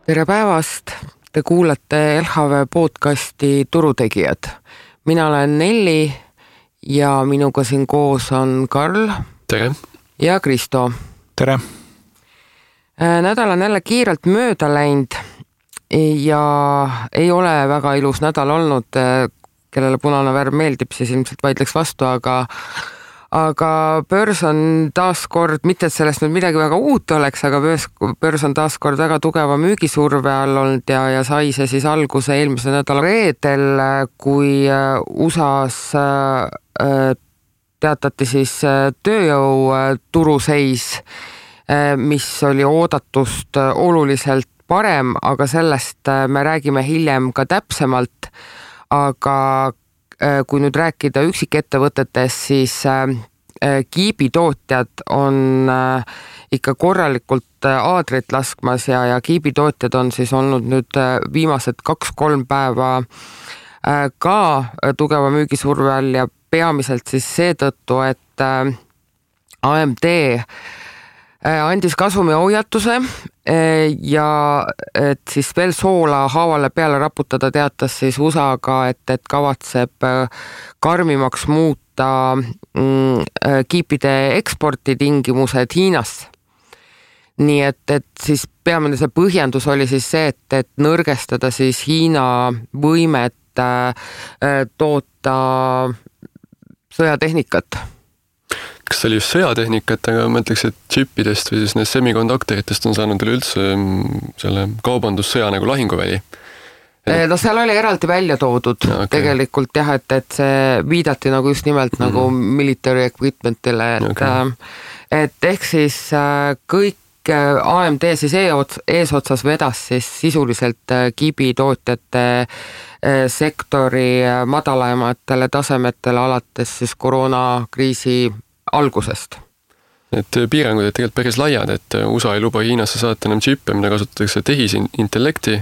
Tere päevast! Te kuulate LHV podcasti Turutegijad. Mina olen Nelli ja minuga siin koos on Karl. Tere! Ja Kristo. Tere! Nädal on jälle kiirelt mööda läinud ja ei ole väga ilus nädal olnud. Kellele punane värv meeldib, siis ilmselt vaidleks vastu, aga börs on taas kord, mitte et sellest nüüd midagi väga uut oleks, aga börs on taas kord väga tugeva müügisurve all olnud ja sai see siis alguse eelmise nädala reedel, kui USAs teatati siis tööjõu turuseis, mis oli oodatust oluliselt parem, aga sellest me räägime hiljem ka täpsemalt. Aga kui nüüd rääkida üksikettevõtetest, siis kiibitootjad on ikka korralikult aadrit laskmas ja kiibitootjad on siis olnud nüüd viimased 2-3 päeva ka tugeva müügisurve all ja peamiselt siis seetõttu, et AMD andis kasumi hoiatuse ja et siis veel soola haavale peale raputada teatas siis USA-ga, et kavatseb karmimaks muuta kiipide eksportitingimused Hiinasse. Nii et siis peamine see põhjendus oli siis see, et nõrgestada siis Hiina võimet toota sõjatehnikat. Kas see oli just sõjatehnikat, aga ma ütleks, et chipidest või siis need semikonduktoritest on saanud üleüldse selle kaubandussõja nagu lahinguväli? No seal oli eraldi välja toodud tegelikult jah, et see viidati nagu just nimelt nagu military equipmentile, et ehk siis kõik AMD siis eesotsas vedas siis sisuliselt kiibitootjate sektori madalamatele tasemetele alates siis koroonakriisi algusest. Need piirangud on tegelikult päris laiad, et USA ei luba Hiinasse saata enam chippe, mida kasutatakse tehisintellekti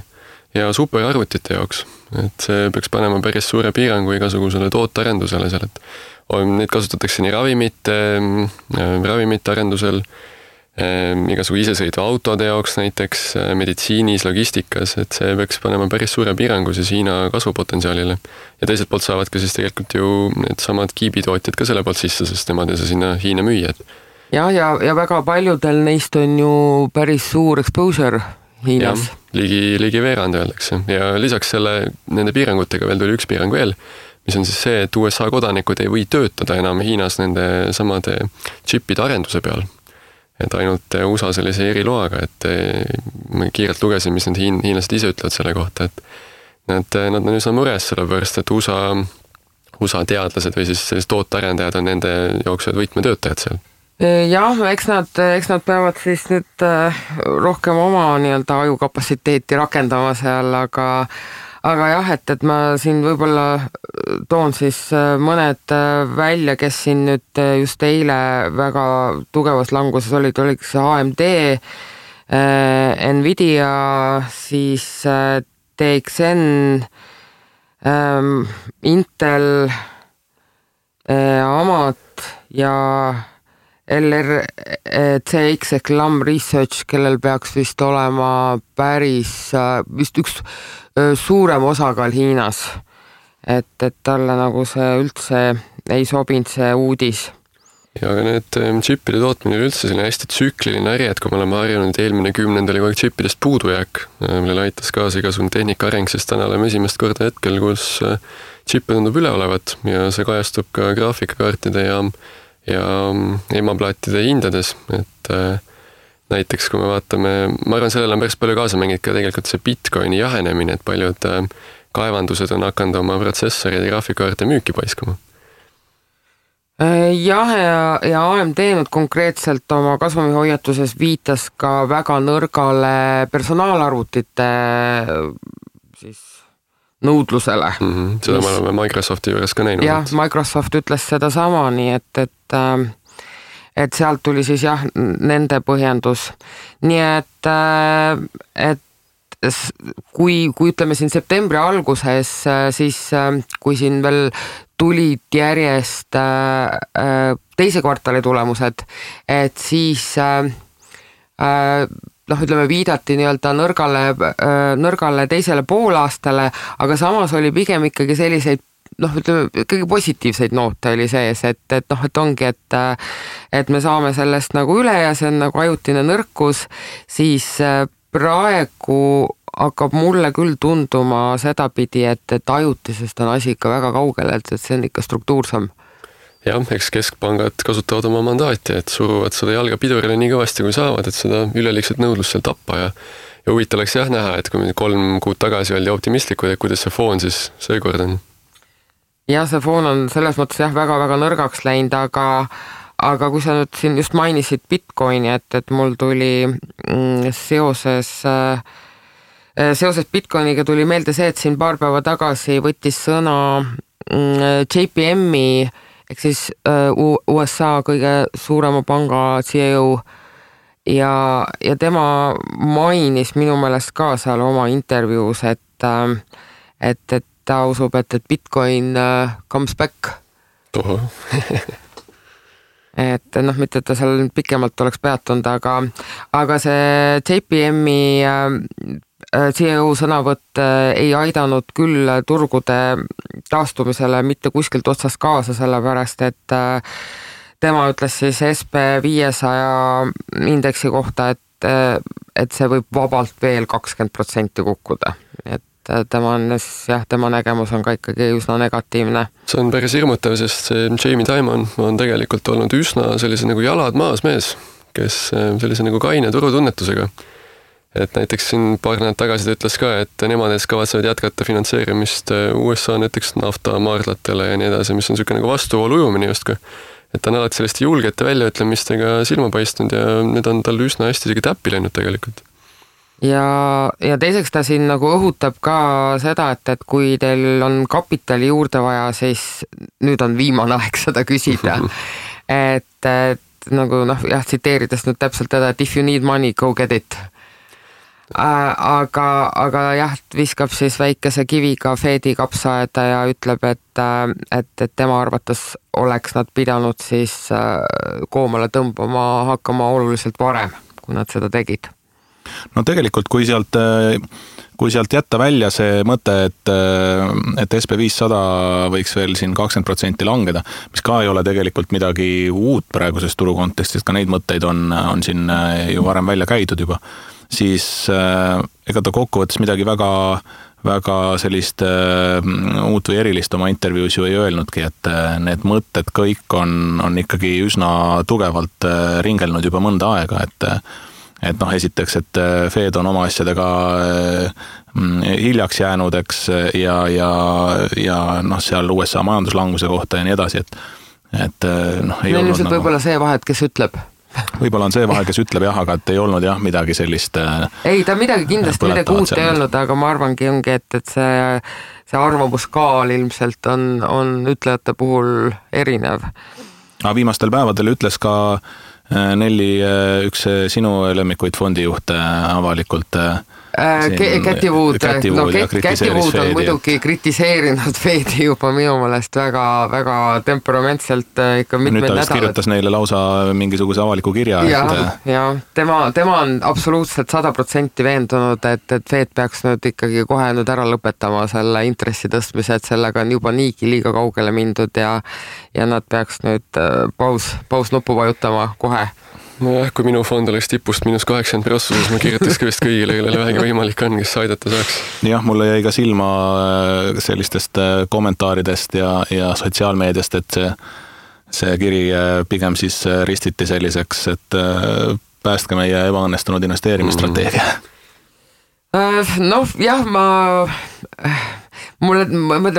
ja superarvutite jaoks. Et see peaks panema päris suure piirangu igasugusele tootearendusele seal, et neid kasutatakse nii ravimite arendusel, igasugu isesõidu autode jaoks näiteks, meditsiinis, logistikas, et see peaks panema päris suure piirangu siis Hiina kasvupotentsiaalile. Ja teiselt poolt saavad ka siis tegelikult ju need samad kiibitootjad ka selle poolt sisse, sest nemad ei saa sinna Hiina müüjad. Ja väga paljudel neist on ju päris suur exposure Hiinas. Ligi veerand öeldakse. Ja lisaks nende piirangutega veel tuli üks piirang veel, mis on siis see, et USA kodanikud ei või töötada enam Hiinas nende samade chipide arenduse peal. Et ainult USA sellise eriloaga, et ma kiirelt lugesin, mis need hiinlased ise ütlevad selle kohta, et nad on üsna mures sellepärast, et USA teadlased või siis tootearendajad on nende jooksvad võtmetöötajad seal. Jah, eks nad peavad siis nüüd rohkem oma nii-öelda ajukapatsiteeti rakendama seal, aga jah, et ma siin võib-olla toon siis mõned välja, kes siin nüüd just eile väga tugevas languses olid AMD, Nvidia, siis TXN, Intel, Amat ja LRCX ehk Lam Research, kellel peaks vist olema vist üks suurem osakaal Hiinas, et talle nagu see üldse ei sobinud see uudis. Ja aga need chipide tootmine üldse selline hästi tsükliline äri, et kui me oleme harjunud eelmine 10 oli kogu chipidest puudujääk, millele aitas kaasa igasugune tehnika areng, sest täna oleme esimest korda hetkel, kus chippe tundub üle olevat ja see kajastub ka graafikakaartide ja emaplaatide hindades, et näiteks kui me vaatame, ma arvan, sellele on päris palju kaasa mängid ka tegelikult see Bitcoini jahenemine, et paljud kaevandused on hakanud oma protsessorid ja graafikakaarte müüki paiskama. Jah, ja AMD nüüd konkreetselt oma kasvumihoiatuses viitas ka väga nõrgale personaalarvutite siis nõudlusele. Seda me oleme Microsofti juures ka näinud. Jah, Microsoft ütles seda sama, nii et sealt tuli siis jah, nende põhjendus. Nii et kui ütleme siin septembri alguses, siis kui siin veel tulid järjest teise kvartali tulemused, et siis ütleme, viidati nii-öelda nõrgale teisele poolaastale, aga samas oli pigem ikkagi selliseid ütleme, kõige positiivseid noote oli sees, et ongi, et me saame sellest nagu üle ja see on nagu ajutine nõrkus, siis praegu hakkab mulle küll tunduma sedapidi, et ajutisest on asi ikka väga kaugel, et see on ikka struktuursam. Jah, eks keskpangad kasutavad oma mandaati, et suruvad seda jalga pidurile nii kõvasti, kui saavad, et seda üleliigset nõudlust seal tappa ja huvitav oleks jah näha, et kui 3 kuud tagasi oldi optimistlikud, et kuidas see foon siis seekord on. Jah, see foon on selles mõttes jah väga-väga nõrgaks läinud, aga kui sa nüüd siin just mainisid Bitcoini, et mul tuli seoses Bitcoiniga tuli meelde see, et siin paar päeva tagasi võttis sõna JPM-i ehk siis USA kõige suurema panga CEO ja tema mainis minu meelest ka seal oma intervjuus, et ta usub, et Bitcoin comes back. Toho. Et mitte, et ta seal pikemalt oleks peatunud, aga see JPM-i CEO sõnavõtt ei aidanud küll turgude taastumisele mitte kuskilt otsast kaasa, sellepärast et tema ütles siis SP500 indeksi kohta, et see võib vabalt veel 20% kukkuda. Et tema nägemus on ka ikkagi üsna negatiivne. See on päris hirmutav, sest see Jamie Dimon on tegelikult olnud üsna sellise nagu jalad maas mees, kes sellise nagu kaine turutunnetusega. Et näiteks siin paar nädalad tagasi ta ütles ka, et nemad kavatsevad jätkata finantseerimist USA näiteks naftamaardlatele ja nii edasi, mis on niisugune nagu vastuvoolu ujumine justkui. Et ta on alati selliste julgete väljaütlemistega silma paistnud ja need on tal üsna hästi isegi täppi läinud tegelikult. Ja teiseks ta siin nagu õhutab ka seda, et kui teil on kapitali juurde vaja, siis nüüd on viimane aeg seda küsida. et nagu tsiteerides nüüd täpselt teda, et if you need money, go get it. Aga jah, viskab siis väikese kiviga Fedi kapsaaeda ja ütleb, et tema arvates oleks nad pidanud siis koomale tõmbama hakkama oluliselt varem, kui nad seda tegid. No tegelikult, kui sealt jätta välja see mõte, et SP500 võiks veel siin 20% langeda, mis ka ei ole tegelikult midagi uut praeguses turu kontekstis, ka neid mõtteid on siin ju varem välja käidud juba, siis ega ta kokkuvõttes midagi väga sellist uut või erilist oma intervjuus ju ei öelnudki, et need mõtted kõik on ikkagi üsna tugevalt ringelnud juba mõnda aega, et esiteks, et Fed on oma asjadega hiljaks jäänud, eks, ja seal USA majanduslanguse kohta ja nii edasi, et ei olnud nagu... võib-olla see vahet, kes ütleb. Võib-olla on see vahe, kes ütleb jah, aga et ei olnud jah midagi sellist... Ei, ta midagi kindlasti midagi uut ei olnud, aga ma arvangi ongi, et see arvamuskaal ilmselt on ütlejate puhul erinev. Aga viimastel päevadel ütles ka Nelli, üks sinu lemmikuid fondijuhte avalikult... Käti Wood on muidugi kritiseerinud Fedi juba minu meelest väga temperamentselt ikka mitmed nädalad. Nüüd ta kirjutas neile lausa mingisuguse avaliku kirja. Ja tema on absoluutselt 100% veendunud, et Fed peaks nüüd ikkagi kohe nüüd ära lõpetama selle intressi tõstmise, et sellega on juba niigi liiga kaugele mindud ja nad peaks nüüd paus nuppu vajutama kohe. Nojah, kui minu fond oleks tipust -80%, siis ma kirjutaks ka vist kõigile, kellele vähegi võimalik on, kes aidata saaks. Jah, mulle jäi ka silma sellistest kommentaaridest ja sotsiaalmeediast, et see kiri pigem siis ristiti selliseks, et päästke meie ebaõnnestunud investeerimisstrateegia. Jah,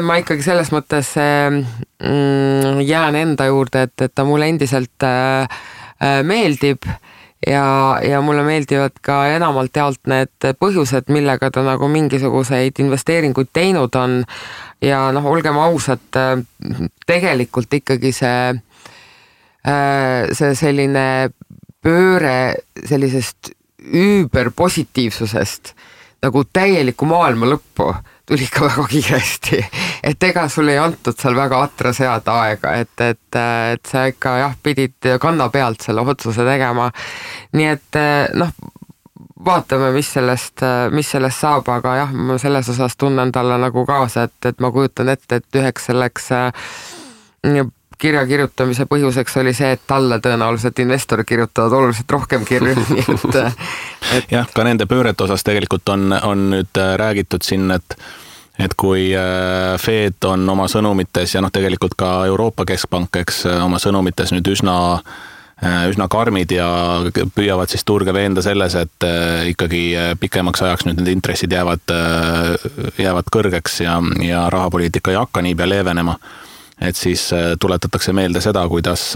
ma ikkagi selles mõttes jään enda juurde, et ta mulle endiselt meeldib ja mulle meeldivad ka enamalt jaolt need põhjused, millega ta nagu mingisuguseid investeeringuid teinud on ja olgem ausad, tegelikult ikkagi see selline pööre sellisest üüberpositiivsusest nagu täieliku maailma lõppu tuli ikka väga kiiresti, et ega sul ei antud seal väga atra seada aega, et sa ikka pidid kanna pealt selle otsuse tegema. Nii et vaatame, mis sellest saab, aga jah, ma selles osas tunnen talle nagu kaasa, et ma kujutan ette, et üheks selleks kirja kirjutamise põhjuseks oli see, et talle tõenäoliselt investorid kirjutavad oluliselt rohkem kirju, nii et... Jah, ka nende pöörete osas tegelikult on nüüd räägitud siin, et kui Fed on oma sõnumites ja tegelikult ka Euroopa Keskpank, eks oma sõnumites nüüd üsna karmid ja püüavad siis turge veenda selles, et ikkagi pikemaks ajaks nüüd need intressid jäävad kõrgeks ja rahapoliitika ei hakka niipea leevenema. Et siis tuletatakse meelde seda, kuidas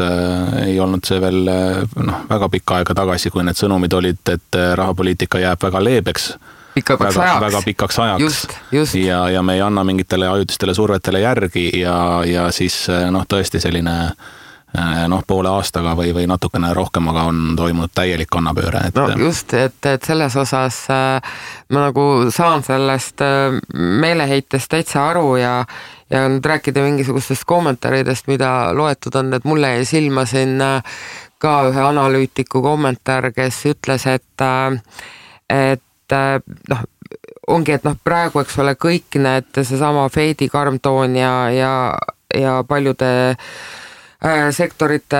ei olnud see veel väga pikka aega tagasi, kui need sõnumid olid, et rahapoliitika jääb väga leebeks. Väga pikaks ajaks. Just. Ja me ei anna mingitele ajutistele survetele järgi ja siis tõesti selline poole aastaga või natukene rohkem, aga on toimunud täielik kannapööre. Just, et selles osas ma nagu saan sellest meeleheitest täitsa aru ja nüüd rääkida mingisugustest kommentaaridest, mida loetud on, et mulle jäi silma siin ka ühe analüütiku kommentaar, kes ütles, et ongi, et praegu, eks ole, kõik need seesama Fedi karmtoon ja paljude sektorite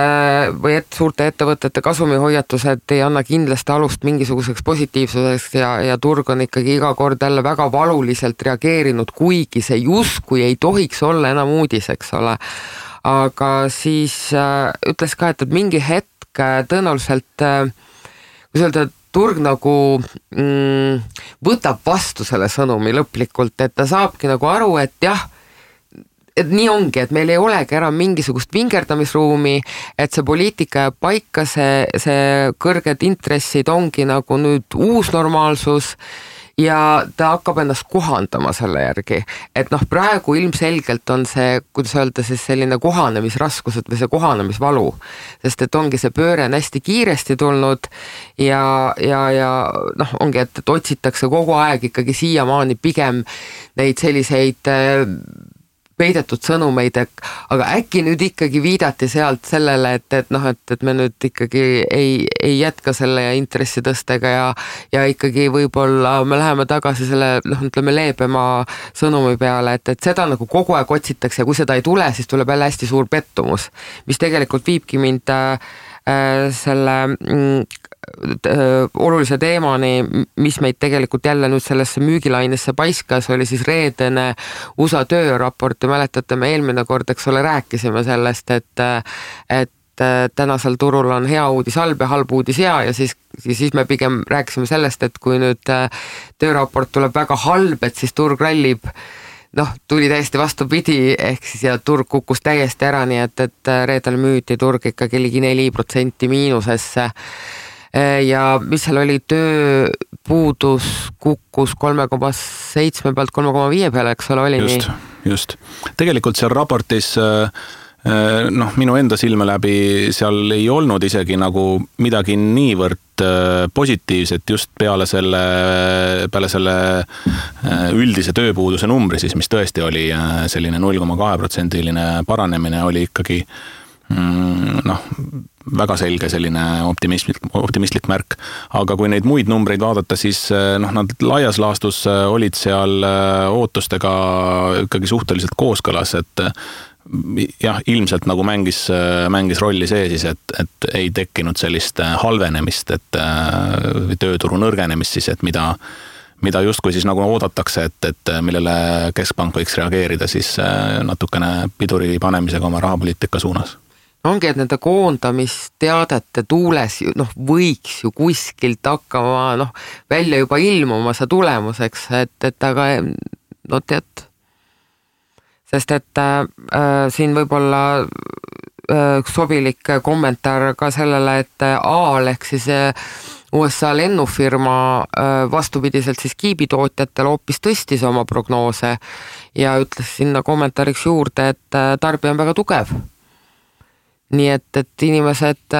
või suurte ettevõtete kasumihoiatused ei anna kindlasti alust mingisuguseks positiivsuseks ja turg on ikkagi iga kord jälle väga valuliselt reageerinud, kuigi see justkui ei tohiks olla enam uudis, eks ole. Aga siis ütles ka, et mingi hetk tõenäoliselt, kui öelda, turg nagu võtab vastu selle sõnumi lõplikult, et ta saabki nagu aru, et jah, et nii ongi, et meil ei olegi enam mingisugust vingerdamisruumi, et see poliitika jääb paika, see kõrged intressid ongi nagu nüüd uus normaalsus ja ta hakkab ennast kohandama selle järgi. Et praegu ilmselgelt on see, kuidas öelda, siis selline kohanemisraskused või see kohanemisvalu, sest et ongi see pööre on hästi kiiresti tulnud ja ongi, et otsitakse kogu aeg ikkagi siiamaani pigem neid selliseid peidetud sõnumeid, aga äkki nüüd ikkagi viidati sealt sellele, et me nüüd ikkagi ei jätka selle intressitõstega ja ikkagi võib-olla me läheme tagasi selle, ütleme, leebema sõnumi peale, et seda nagu kogu aeg otsitakse ja kui seda ei tule, siis tuleb jälle hästi suur pettumus, mis tegelikult viibki mind selle olulise teemani, mis meid tegelikult jälle nüüd sellesse müügilainesse paiskas, oli siis reedene USA tööraport ja mäletate, me eelmine kord, eks ole, rääkisime sellest, et tänasel turul on hea uudis halb ja halb uudis hea ja siis me pigem rääkisime sellest, et kui nüüd tööraport tuleb väga halb, et siis turg rallib, tuli täiesti vastupidi, ehk siis ja turg kukkus täiesti ära, nii et reedel müüdi turg ikkagi ligi 4% miinusesse. Ja mis seal oli, tööpuudus kukkus 3,7 pealt 3,5 peale, eks ole, oli just, nii? Just. Tegelikult seal raportis minu enda silme läbi seal ei olnud isegi nagu midagi niivõrd positiivset just peale selle üldise tööpuuduse numbri siis, mis tõesti oli selline 0,2% paranemine, oli ikkagi väga selge selline optimistlik märk. Aga kui neid muid numbreid vaadata, siis nad laias laastus olid seal ootustega ikkagi suhteliselt kooskõlas, et jah, ilmselt nagu mängis rolli see siis, et ei tekkinud sellist halvenemist, et tööturu nõrgenemist siis, et mida justkui siis nagu oodatakse, et millele keskpank võiks reageerida siis natukene piduri panemisega oma rahapoliitika suunas. Ongi, et nende koondamisteadete tuules võiks ju kuskilt hakkama välja juba ilmuma see tulemuseks, et aga tead, sest et siin võib-olla sobilik kommentaar ka sellele, et AAL ehk siis USA lennufirma vastupidiselt siis kiibitootjatel hoopis tõstis oma prognoose ja ütles sinna kommentaariks juurde, et tarbija on väga tugev. Nii et inimesed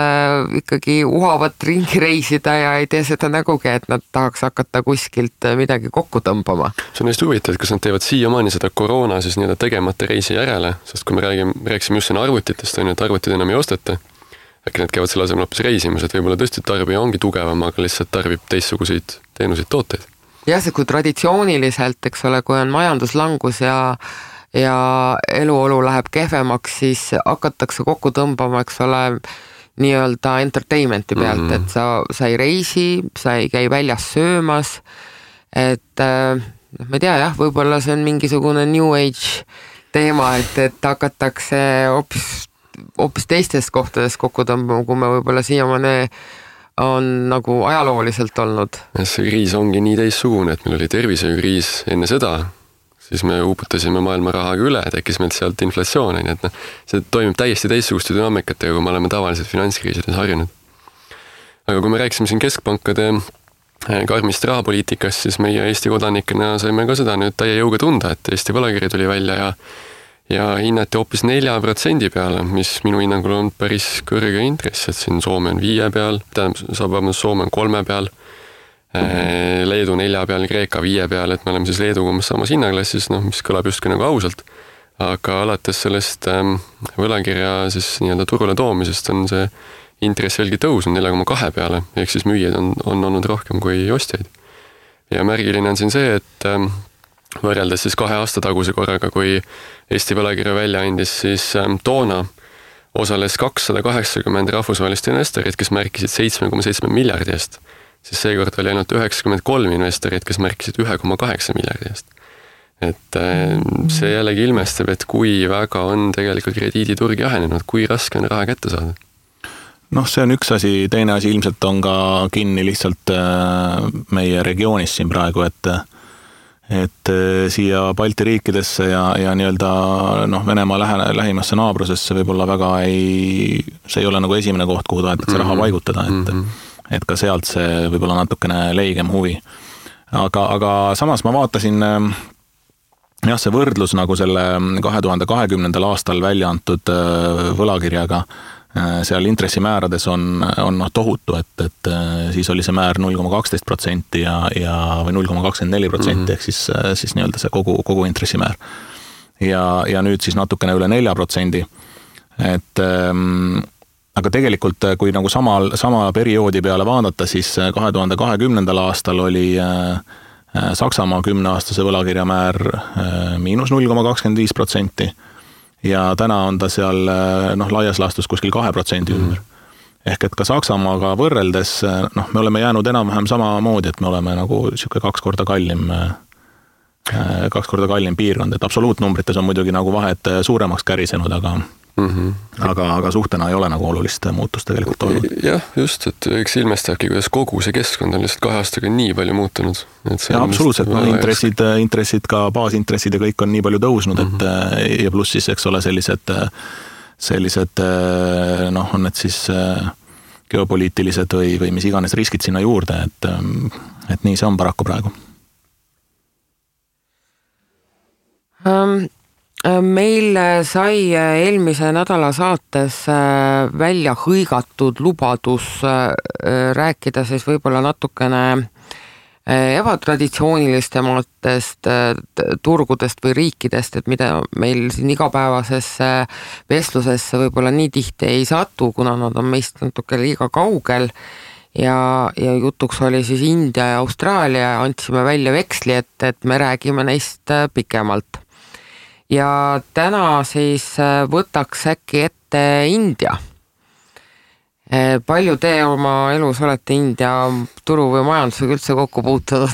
ikkagi uhavad ringi reisida ja ei tee seda nägugi, et nad tahaks hakata kuskilt midagi kokku tõmbama. See on hästi huvitav, et kas nad teevad siiamaani seda koroona siis tegemata reisi järele, sest kui me rääksime just siin arvutitest, et arvutid enam ei osteta, äkki need käivad selle asemel hoopis reisimas, et võib-olla tõesti tarbija ongi tugevam, aga lihtsalt tarbib teistsuguseid teenuseid, tooteid. Jah, see kui traditsiooniliselt, eks ole, kui on majanduslangus ja eluolu läheb kehvemaks, siis hakatakse kokku tõmbama, eks ole, nii-öelda entertainmenti pealt, et sa ei reisi, sa ei käi väljas söömas, et ma ei tea, jah, võib-olla see on mingisugune New Age teema, et hakatakse hoopis teistes kohtades kokku tõmbama, kui me võib-olla siiamaani on nagu ajalooliselt olnud. See kriis ongi nii teistsugune, et meil oli tervishoiukriis enne seda, siis me uputasime maailma rahaga üle, tekkis meilt sealt inflatsioon, nii et see toimib täiesti teistsuguste dünaamikatega, kui me oleme tavaliselt finantskriisides harjunud. Aga kui me rääkisime siin keskpankade karmist rahapoliitikast, siis meie Eesti kodanikena saime ka seda nüüd täie jõuga tunda, et Eesti võlakiri tuli välja ja hinnati hoopis 4% peale, mis minu hinnangul on päris kõrge intress, et siin Soome on 5 peal, Soome on 3 peal, Leedu 4 peal, Kreeka 5 peal, et me oleme siis Leeduga umbes samas hinnaklassis, mis kõlab justkui nagu ausalt, aga alates sellest võlakirja siis nii-öelda turule toomisest on see intress veelgi tõusnud 4,2 peale, ehk siis müüjaid on olnud rohkem kui ostjaid. Ja märgiline on siin see, et võrreldes siis 2 aasta taguse korraga, kui Eesti võlakirja välja andis, siis toona osales 280 rahvusvahelist investorit, kes märkisid 7,7 miljardi eest, siis seekord oli ainult 93 investorit, kes märkisid 1,8 miljardi eest. Et see jällegi ilmestab, et kui väga on tegelikult krediiditurg jahenenud, kui raske on raha kätte saada. See on üks asi, teine asi ilmselt on ka kinni lihtsalt meie regioonis siin praegu, et siia Balti riikidesse ja nii-öelda Venemaa lähimasse naabrusesse võib-olla väga see ei ole nagu esimene koht, kuhu tahetakse raha paigutada, et ka sealt see võib-olla natukene leigem huvi. Aga samas ma vaatasin, see võrdlus nagu selle 2020. aastal välja antud võlakirjaga, seal intressimäärades on tohutu, et siis oli see määr 0,12% või 0,24% ehk siis nii-öelda see kogu intressimäär. Ja nüüd siis natukene üle 4%. Aga tegelikult, kui nagu sama perioodi peale vaadata, siis 2020. aastal oli Saksamaa 10-aastase võlakirja määr -0,25%. Ja täna on ta seal laias laastus kuskil 2% ümber. Ehk et ka Saksamaaga võrreldes, me oleme jäänud enam-vähem samamoodi, et me oleme nagu siuke 2 korda kallim piirkond, et absoluutnumbrites on muidugi nagu vahed suuremaks kärisenud, aga suhtena ei ole nagu olulist muutust tegelikult olnud. Jah, just, et eks ilmestabki, kuidas kogu see keskkond on lihtsalt 2 aastaga nii palju muutunud. Ja absoluutselt, intressid ka baasintressid ja kõik on nii palju tõusnud, et ja pluss siis, eks ole, sellised on need siis geopoliitilised või mis iganes riskid sinna juurde, et nii see on paraku praegu. Meil sai eelmise nädala saates välja hõigatud lubadus rääkida siis võib-olla natukene ebatraditsioonilistematest turgudest või riikidest, et mida meil siin igapäevasesse vestlusesse võib-olla nii tihti ei satu, kuna nad on meist natuke liiga kaugel ja jutuks oli siis India ja Austraalia, andsime välja veksli, et me räägime neist pikemalt. Ja täna siis võtaks äkki ette India. Palju te oma elus olete India turu või majandusega üldse kokku puutunud?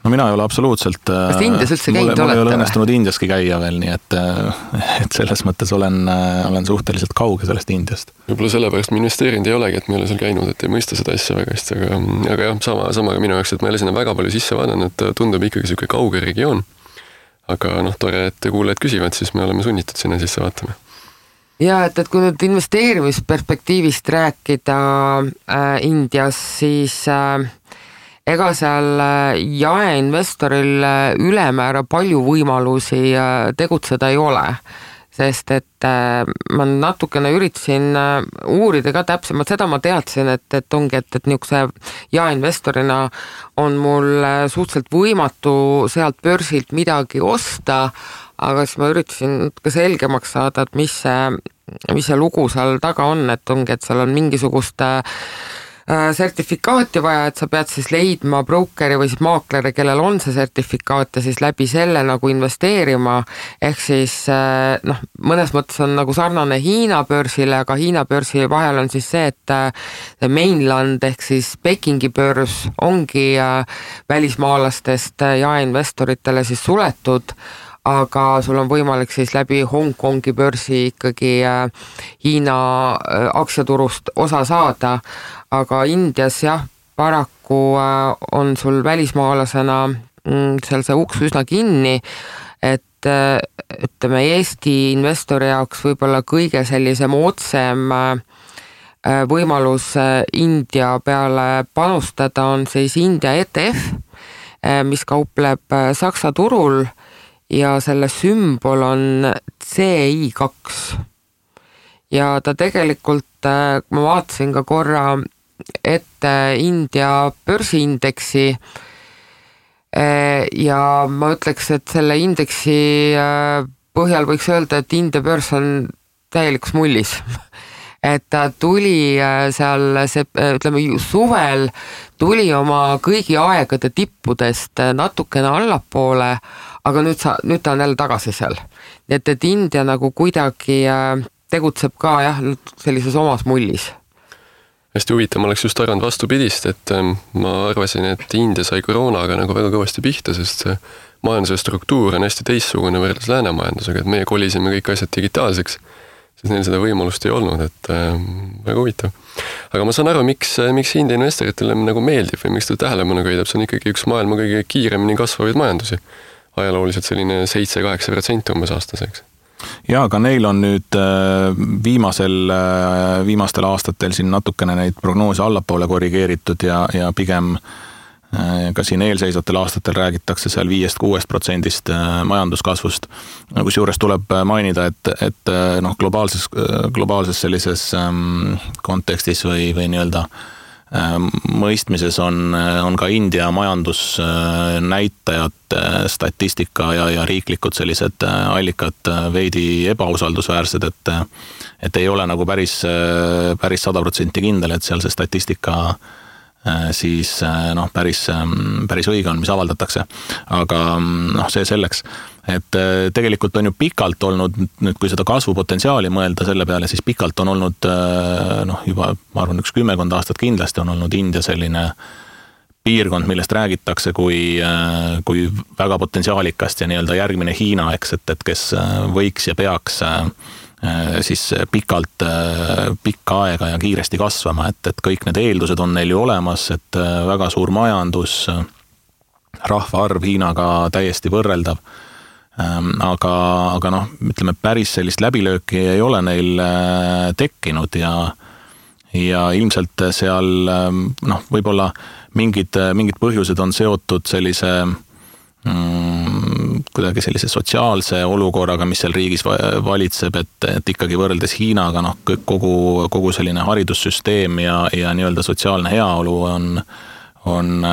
No mina ei ole absoluutselt... Kas te Indias üldse käinud olete? Mul ei ole õnnestunud Indiaski käia veel, nii et selles mõttes olen suhteliselt kauge sellest Indiast. Võib-olla sellepärast me investeerinud ei olegi, et me ei ole seal käinud, et ei mõista seda asja väga hästi, aga jah, sama ka minu jaoks, et ma ei ole sinna väga palju sisse vaadanud, et tundub ikkagi selline kauge regioon. Aga tore, et kuulajad küsivad, siis me oleme sunnitud sinna sisse vaatama. Ja, et kui nüüd investeerimisperspektiivist rääkida Indias, siis ega seal jaeinvestoril ülemäära palju võimalusi tegutseda ei ole. sest et ma natukene üritasin uurida ka täpsemalt, seda ma teadsin, et ongi, et niisuguse jaeinvestorina on mul suhteliselt võimatu sealt börsilt midagi osta, aga siis ma üritasin ka selgemaks saada, et mis see lugu seal taga on, et ongi, et seal on mingisugust sertifikaati vaja, et sa pead siis leidma brokeri või siis maakleri, kellel on see sertifikaat ja siis läbi selle nagu investeerima, ehk siis mõnes mõttes on nagu sarnane Hiina börsile, aga Hiina börsi vahel on siis see, et mainland ehk siis Pekingi börs ongi välismaalastest jaeinvestoritele siis suletud, aga sul on võimalik siis läbi Hongkongi börsi ikkagi Hiina aktsiaturust osa saada, aga Indias jah, paraku on sul välismaalasena seal see uks üsna kinni, et ütleme Eesti investori jaoks võib-olla kõige sellisem otsem võimalus India peale panustada on siis India ETF, mis kaupleb Saksa turul ja selle sümbol on CI2 ja ta tegelikult, ma vaatasin ka korra ette India börsiindeksi ja ma ütleks, et selle indeksi põhjal võiks öelda, et India börs on täielikus mullis. Et ta tuli seal, ütleme suvel tuli oma kõigi aegade tippudest natukene allapoole, aga nüüd ta on jälle tagasi seal. Nii et India nagu kuidagi tegutseb ka jah, sellises omas mullis. Hästi huvitav, ma oleks just arvanud vastupidist, et ma arvasin, et India sai koroonaga nagu väga kõvasti pihta, sest see majanduse struktuur on hästi teissugune võrreldes läänemajandusega, et meie kolisime kõik asjad digitaalseks, siis neil seda võimalust ei olnud, et väga huvitav. Aga ma saan aru, miks India investoritele nagu meeldib või miks ta tähelepanu köidab, see on ikkagi üks maailma kõige kiiremini kasvavaid majandusi. Ajalooliselt selline 7-8% umbes aastaseks. Ja, aga neil on nüüd viimastel aastatel siin natukene neid prognoose allapoole korrigeeritud ja pigem ka siin eelseisvatel aastatel räägitakse seal 5-6% majanduskasvust. Kusjuures tuleb mainida, et globaalses sellises kontekstis või nii-öelda mõistmises on ka India majandusnäitajad, statistika ja riiklikud sellised allikad veidi ebausaldusväärsed, et ei ole nagu päris 100% kindel, et seal see statistika siis päris õige on, mis avaldatakse. Aga see selleks, et tegelikult on ju pikalt olnud, nüüd kui seda kasvupotentsiaali mõelda selle peale, siis pikalt on olnud juba, ma arvan, 10 aastat kindlasti on olnud India selline piirkond, millest räägitakse kui väga potentsiaalikast ja nii-öelda järgmine Hiina, eks, et kes võiks ja peaks siis pikka aega ja kiiresti kasvama, et kõik need eeldused on neil ju olemas, et väga suur majandus, rahvaarv Hiinaga täiesti võrreldav, aga ütleme, päris sellist läbilööki ei ole neil tekkinud ja ilmselt seal võib-olla mingid põhjused on seotud sellise kuidagi sellise sotsiaalse olukorraga, mis seal riigis valitseb, et ikkagi võrreldes Hiinaga kogu selline haridussüsteem ja nii-öelda sotsiaalne heaolu on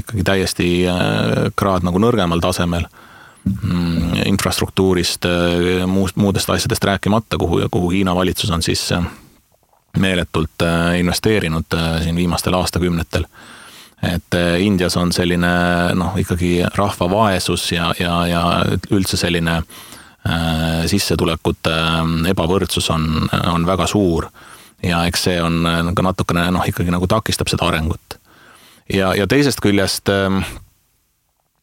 ikkagi täiesti kraad nagu nõrgemal tasemel infrastruktuurist, muudest asjadest rääkimata, kuhu Hiina valitsus on siis meeletult investeerinud siin viimastel aastakümnetel. Et Indias on selline ikkagi rahva vaesus ja üldse selline sissetulekute ebavõrdsus on väga suur ja eks see on ka natukene ikkagi nagu takistab seda arengut. Ja teisest küljest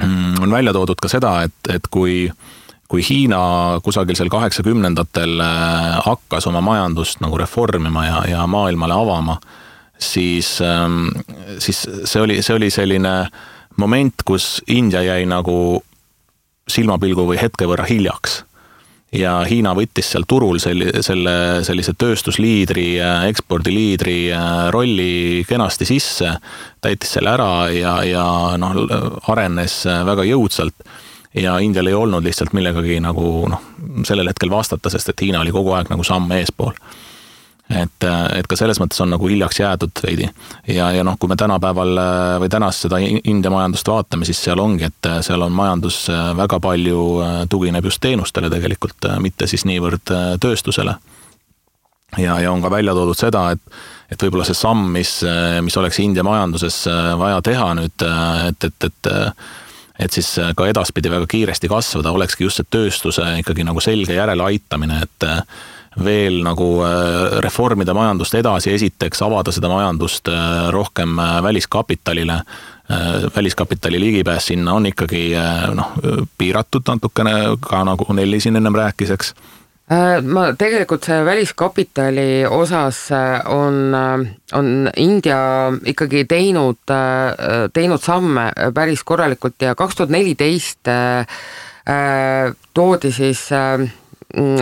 on välja toodud ka seda, et kui Hiina kusagil seal 80-ndatel hakkas oma majandust nagu reformima ja maailmale avama, siis see oli selline moment, kus India jäi nagu silmapilgu või hetke võrra hiljaks. Ja Hiina võttis seal turul sellise tööstusliidri, ekspordiliidri rolli kenasti sisse, täitis selle ära ja arenes väga jõudsalt. ja Indial ei olnud lihtsalt millegagi nagu sellel hetkel vastata, sest et Hiina oli kogu aeg nagu samm eespool. Et ka selles mõttes on nagu hiljaks jäädud veidi. Ja kui me tänapäeval või tänast seda India majandust vaatame, siis seal ongi, et seal on majandus väga palju tugineb just teenustele tegelikult, mitte siis niivõrd tööstusele. Ja on ka välja toodud seda, et võib-olla see samm, mis oleks India majanduses vaja teha nüüd, et siis ka edaspidi väga kiiresti kasvada, olekski just see tööstuse ikkagi nagu selge järele aitamine, et veel nagu reformida majandust edasi, esiteks avada seda majandust rohkem väliskapitalile. Väliskapitali ligipääs sinna on ikkagi piiratud natukene, ka nagu Nelli siin ennem rääkis, eks. Ma tegelikult see väliskapitali osas on India ikkagi teinud samme päris korralikult ja 2014 toodi siis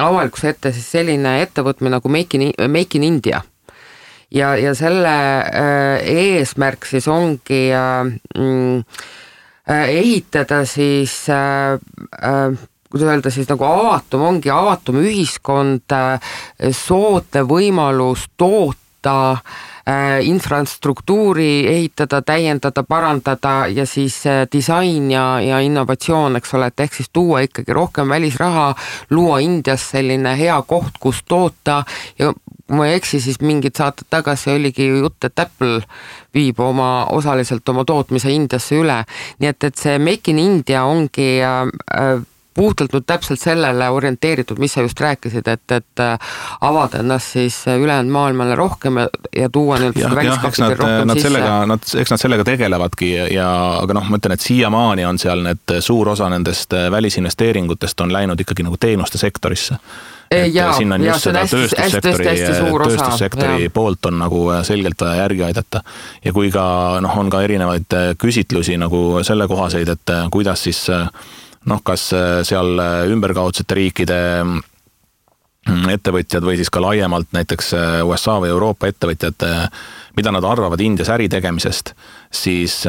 avalikkuse ette siis selline ettevõtmine nagu Make in India. Ja selle eesmärk siis ongi ehitada siis kuidas öelda siis nagu avatum ühiskond, soodne võimalus toota, infrastruktuuri ehitada, täiendada, parandada ja siis disain ja innovatsioon, eks ole, et ehk siis tuua ikkagi rohkem välisraha, luua Indias selline hea koht, kus toota ja kui ma ei eksi, siis mingid saated tagasi oligi jutt, et Apple viib osaliselt oma tootmise Indiasse üle. Nii et see Make in India ongi puhtalt nüüd täpselt sellele orienteeritud, mis sa just rääkisid, et avada ennast siis ülejäänud maailmale rohkem ja tuua väliskapitali rohkem sisse. Eks nad sellega tegelevadki, aga ma ütlen, et siiamaani on seal suur osa nendest välisinvesteeringutest on läinud ikkagi nagu teenuste sektorisse. Siin on just seda tööstussektori poolt on nagu selgelt vaja järgi aidata. Ja kui ka on ka erinevaid küsitlusi nagu selle kohaseid, et kuidas siis kas seal ümberkaudsete riikide ettevõtjad või siis ka laiemalt näiteks USA või Euroopa ettevõtjad, mida nad arvavad Indias äri tegemisest, siis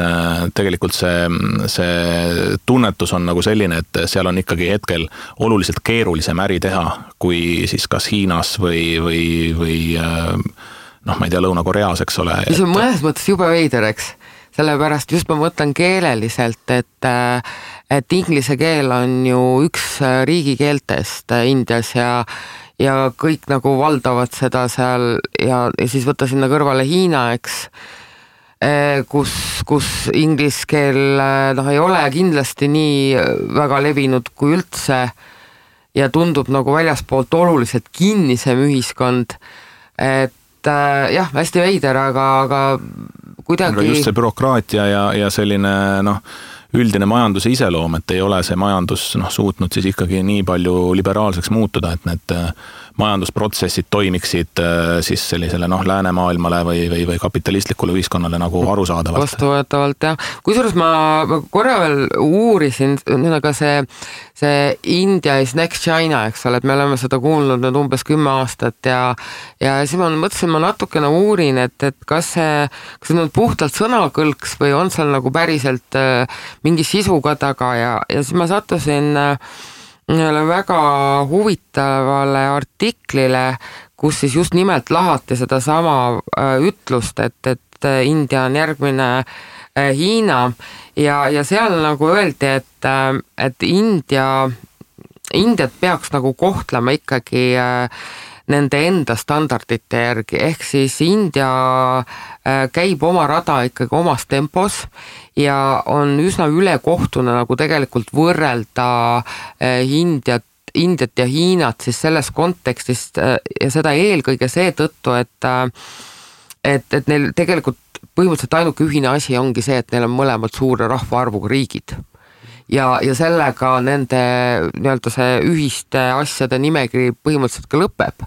tegelikult see tunnetus on nagu selline, et seal on ikkagi hetkel oluliselt keerulisem äri teha, kui siis kas Hiinas või ma ei tea, Lõuna-Koreas, eks ole. See on mõnes mõttes jube veider, eks? Sellepärast just ma mõtlen keeleliselt, et inglise keel on ju üks riigikeeltest Indias ja kõik nagu valdavad seda seal ja siis võtta sinna kõrvale Hiina, eks, kus inglise keel ei ole kindlasti nii väga levinud kui üldse ja tundub nagu väljaspoolt oluliselt kinnisem ühiskond, et jah, hästi veider, aga kuidagi... Just see bürokraatia ja selline üldine majanduse iseloom, et ei ole see majandus suutnud siis ikkagi nii palju liberaalseks muutuda, et need majandusprotsessid toimiksid siis sellisele läänemaailmale või kapitalistlikule ühiskonnale nagu arusaadavalt. Vastuvõetavalt, jah. Kusjuures ma korra veel uurisin, aga see India is next China, eks ole, et me oleme seda kuulnud nüüd umbes 10 aastat ja siis ma mõtlesin, ma natukene uurin, et kas see nüüd puhtalt sõnakõlks või on seal nagu päriselt mingi sisu ka taga ja siis ma sattusin väga huvitavale artiklile, kus siis just nimelt lahati seda sama ütlust, et India on järgmine Hiina ja seal nagu öeldi, et Indiat peaks nagu kohtlema ikkagi nende enda standardite järgi, ehk siis India käib oma rada ikkagi omas tempos ja on üsna ülekohtune nagu tegelikult võrrelda Indiat ja Hiinat siis selles kontekstist ja seda eelkõige seetõttu, et neil tegelikult põhimõtteliselt ainuke ühine asi ongi see, et neil on mõlemad suure rahvaarvuga riigid. Ja sellega nende nii-öelda see ühiste asjade nimekiri põhimõtteliselt ka lõpeb.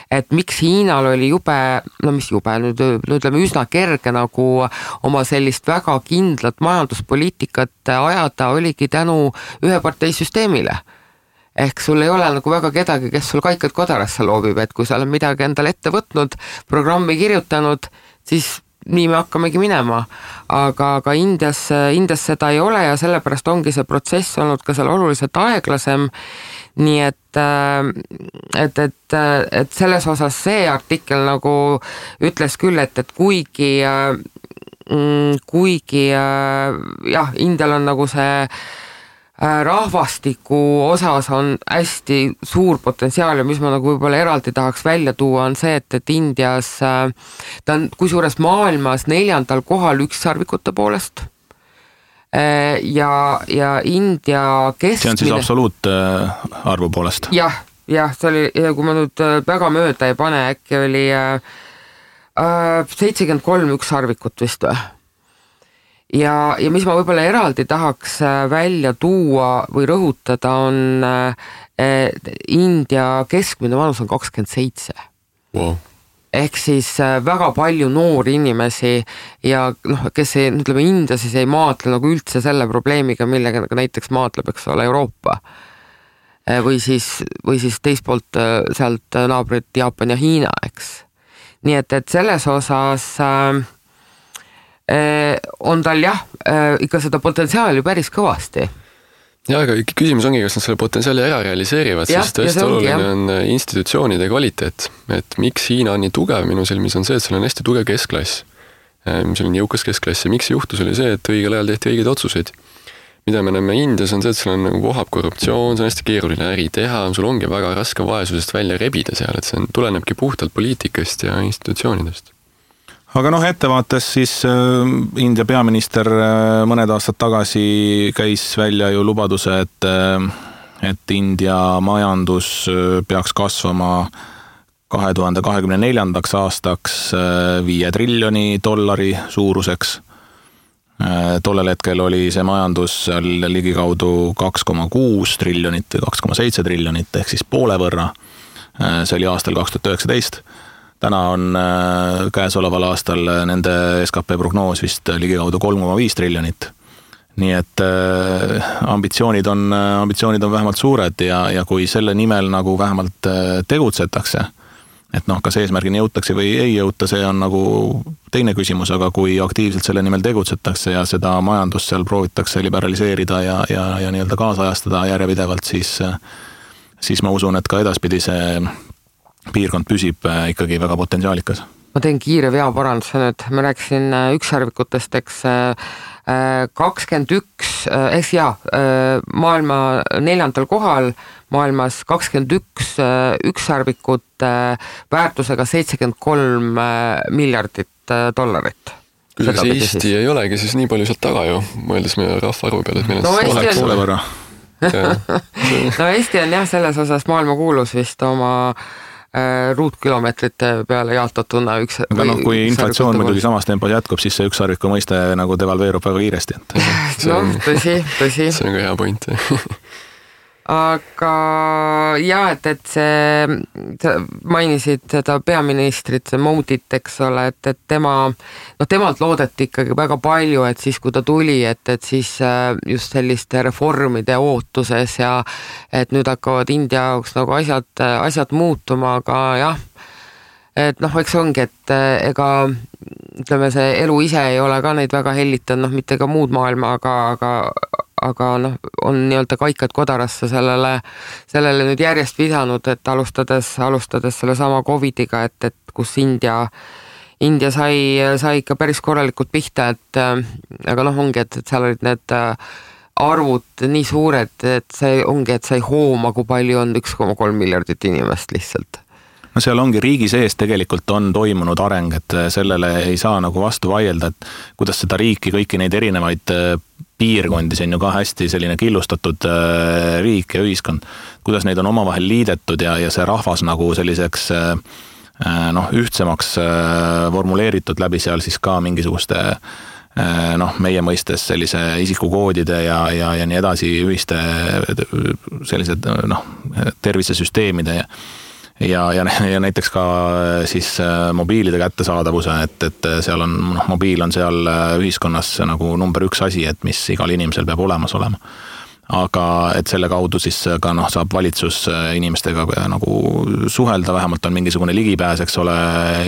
Et miks Hiinal oli nüüd ütleme üsna kerge nagu oma sellist väga kindlat majanduspoliitikat ajada, oligi tänu üheparteisüsteemile. Ehk sul ei ole nagu väga kedagi, kes sul kaikad kodarasse loobib, et kui sa oled midagi endale ette võtnud, programmi kirjutanud, siis nii me hakkamegi minema, aga Indias seda ei ole ja sellepärast ongi see protsess olnud ka seal oluliselt aeglasem, nii et selles osas see artikkel nagu ütles küll, et kuigi jah, Indial on nagu see rahvastiku osas on hästi suur potentsiaal ja mis ma nagu võib-olla eraldi tahaks välja tuua on see, et Indias ta on kusjuures maailmas 4. kohal ükssarvikute poolest ja India keskmine... See on siis absoluutarvu poolest? Jah, see oli, kui ma nüüd väga mööda ei pane, äkki oli 73 ükssarvikut vist või? Ja mis ma võib-olla eraldi tahaks välja tuua või rõhutada on India keskmine vanus on 27. Wow. Ehk siis väga palju noori inimesi ja kes ütleme India siis ei maatle nagu üldse selle probleemiga, millega näiteks maatleb, eks ole, Euroopa. Või siis teispoolt sealt naabrid Jaapan ja Hiina, eks. Nii et selles osas... on tal jah, ikka seda potentsiaali päris kõvasti. Ja, aga küsimus ongi, kas nad selle potentsiaali ära realiseerivad, sest tõesti oluline on institutsioonide kvaliteet. Et miks Hiina on nii tugev minu silmis on see, et seal on hästi tugev keskklass. Seal on jõukas keskklass ja miks juhtus oli see, et õigel ajal tehti õigeid otsuseid. Mida me näeme Indias on see, et seal on nagu vohab korruptsioon, see on hästi keeruline äri teha, sul ongi väga raske vaesusest välja rebida seal, et see tulenebki puhtalt poliitikast ja institutsioonidest. Aga ettevaates siis India peaminister mõned aastad tagasi käis välja ju lubaduse, et India majandus peaks kasvama 2024. aastaks $5 triljoni suuruseks. Tollel hetkel oli see majandus seal ligikaudu 2,6 triljonit või 2,7 triljonit ehk siis poole võrra. See oli aastal 2019. Täna on käesoleval aastal nende SKP prognoos vist ligikaudu 3,5 triljonit. Nii et ambitsioonid on vähemalt suured ja kui selle nimel nagu vähemalt tegutsetakse, et kas eesmärgini jõutakse või ei jõuta, see on nagu teine küsimus, aga kui aktiivselt selle nimel tegutsetakse ja seda majandust seal proovitakse liberaliseerida ja nii-öelda kaasajastada järjepidevalt, siis ma usun, et ka edaspidi see piirkond püsib ikkagi väga potentsiaalikas. Ma teen kiire veaparanduse nüüd. Ma rääkisin ükssarvikutest, eks 21, maailma 4. kohal, maailmas 21 ükssarvikut väärtusega $73 miljardit. Kuidas Eesti ei olegi siis nii palju sealt taga ju, mõeldes meie rahvaarvu peale, et meil oleks poole võrra. No Eesti on jah selles osas maailma kuulus vist oma ruutkilomeetrite peale jaotatuna üks. Aga kui inflatsioon muidugi samas tempos jätkub, siis see ükssarviku mõiste nagu devalveerub väga kiiresti. Tõsi. See on ka hea point. Aga jah, et see mainisid seda peaministrit, Modit, eks ole, et temalt loodeti ikkagi väga palju, et siis kui ta tuli, et siis just selliste reformide ootuses ja et nüüd hakkavad India jaoks nagu asjad muutuma, aga jah, et eks ongi, et ega ütleme, see elu ise ei ole ka neid väga hellitanud, mitte ka muud maailma, aga on nii-öelda kaikad kodarasse sellele nüüd järjest vidanud, et alustades selle sama COVIDiga, et kus India sai ikka päris korralikult pihta, aga ongi, et seal olid need arvud nii suured, et see ongi, et sai hooma, kui palju on 1,3 miljardit inimest lihtsalt. No seal ongi riigi sees tegelikult on toimunud areng, et sellele ei saa nagu vastu vaielda, et kuidas seda riiki, kõiki neid erinevaid piirkondi, see on ju ka hästi selline killustatud riik ja ühiskond, kuidas neid on omavahel liidetud ja see rahvas nagu selliseks ühtsemaks formuleeritud läbi seal siis ka mingisuguste meie mõistes sellise isikukoodide ja nii edasi ühiste sellised tervisesüsteemide ja näiteks ka siis mobiilide kättesaadavuse, et seal on, mobiil on seal ühiskonnas nagu number 1 asi, et mis igal inimesel peab olemas olema. aga et selle kaudu siis ka saab valitsus inimestega nagu suhelda, vähemalt on mingisugune ligipääs, eks ole,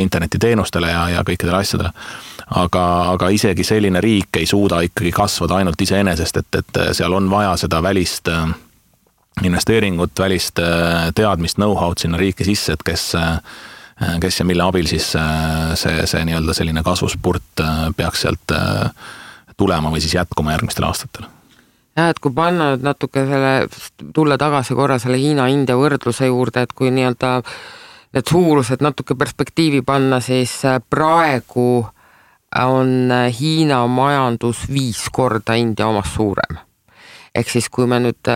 internetiteenustele ja kõikidele asjadele. Aga isegi selline riik ei suuda ikkagi kasvada ainult iseenesest, et seal on vaja seda välist investeeringut, välist teadmist, know-how'd sinna riiki sisse, et kes ja mille abil siis see nii-öelda selline kasvuspurt peaks sealt tulema või siis jätkuma järgmistel aastatel. Ja, et kui panna nüüd natuke tulla tagasi korra selle Hiina-India võrdluse juurde, et kui nii-öelda need suurused natuke perspektiivi panna, siis praegu on Hiina majandus 5 korda India omast suurem. Ehk siis kui me nüüd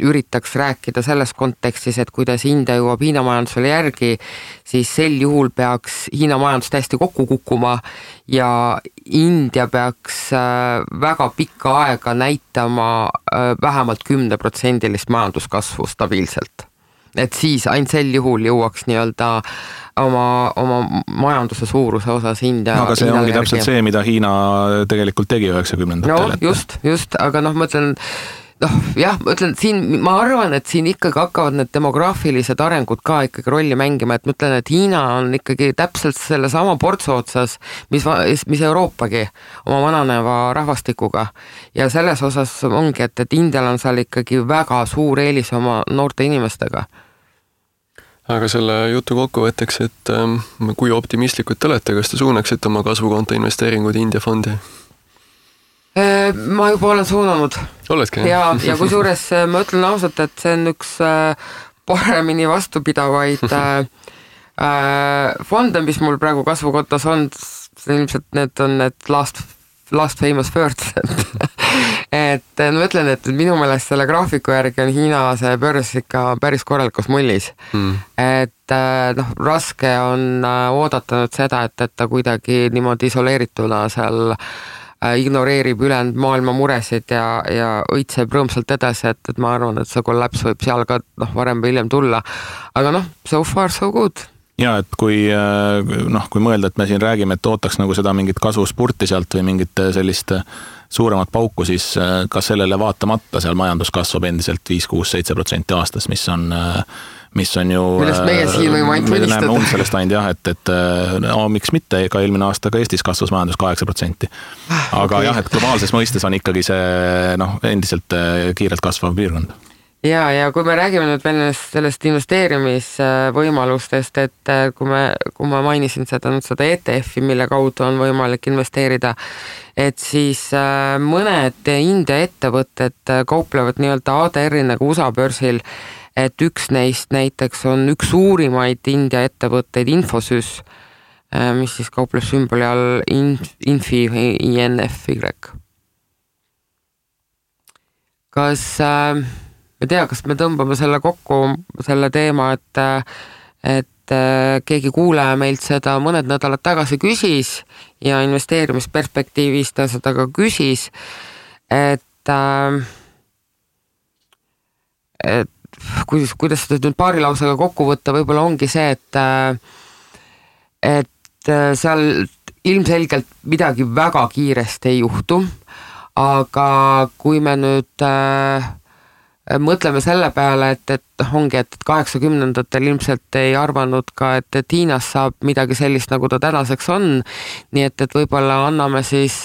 üritaks rääkida selles kontekstis, et kuidas India jõuab Hiina majandusele järgi, siis sel juhul peaks Hiina majandus täiesti kokku kukkuma ja India peaks väga pikka aega näitama vähemalt 10% majanduskasvu stabiilselt. Et siis ainult sel juhul jõuaks nii-öelda oma majanduse suuruse osas India. Aga see ongi täpselt see, mida Hiina tegelikult tegi 90-ndatel. No just, aga ma ütlen, siin ma arvan, et siin ikkagi hakkavad need demograafilised arengud ka ikkagi rolli mängima, et ma ütlen, et Hiina on ikkagi täpselt selle sama portsu otsas, mis Euroopagi oma vananeva rahvastikuga ja selles osas ongi, et Indial on seal ikkagi väga suur eelis oma noorte inimestega. Aga selle jutu kokkuvõtteks, et kui optimistlikud te olete, kas te suunaksite oma kasvukonto investeeringud India fondi? Ma juba olen suunanud. Oledki? Ja kui suures ma ütlen ausalt, et see on üks paremini vastupidavaid fonde, mis mul praegu kasvukontos on, ilmselt need on need last famous words. et ma ütlen, et minu meelest selle graafiku järgi on Hiina see börs ikka päris korralikus mullis. Et raske on oodata nüüd seda, et ta kuidagi niimoodi isoleerituna seal ignoreerib ülejäänud maailma muresid ja õitseb rõõmsalt edasi, et ma arvan, et see kollaps võib seal ka varem või hiljem tulla. Aga so far so good. Ja, et kui mõelda, et me siin räägime, et ootaks nagu seda mingit kasvuspurti sealt või mingit sellist suuremat pauku, siis ka sellele vaatamata seal majandus kasvab endiselt 5-6-7% aastas, mis on ju... Millest meie siin võime ainult mõnistada. Näeme sellest ainult et miks mitte, ka eelmine aasta ka Eestis kasvas majandus 8%. Aga et globaalses mõistes on ikkagi see endiselt kiirelt kasvav piirkond. Ja kui me räägime nüüd veel sellest investeerimisvõimalustest, et kui ma mainisin seda ETF-i, mille kaudu on võimalik investeerida, et siis mõned India ettevõtted kauplevad nii-öelda ADR-i nagu USA börsil, et üks neist näiteks on üks suurimaid India ettevõtteid Infosys, mis siis kaupleb sümboli all Infi INFY. Kas me tõmbame selle kokku, selle teema, et keegi kuulaja meilt seda mõned nädalad tagasi küsis ja investeerimisperspektiivis ta seda ka küsis, et kuidas seda nüüd paari lausega kokku võtta, võib-olla ongi see, et seal ilmselgelt midagi väga kiiresti ei juhtu, aga kui me nüüd mõtleme selle peale, et 80-ndatel ilmselt ei arvanud ka, et Hiinas saab midagi sellist, nagu ta tänaseks on, nii et võib-olla anname siis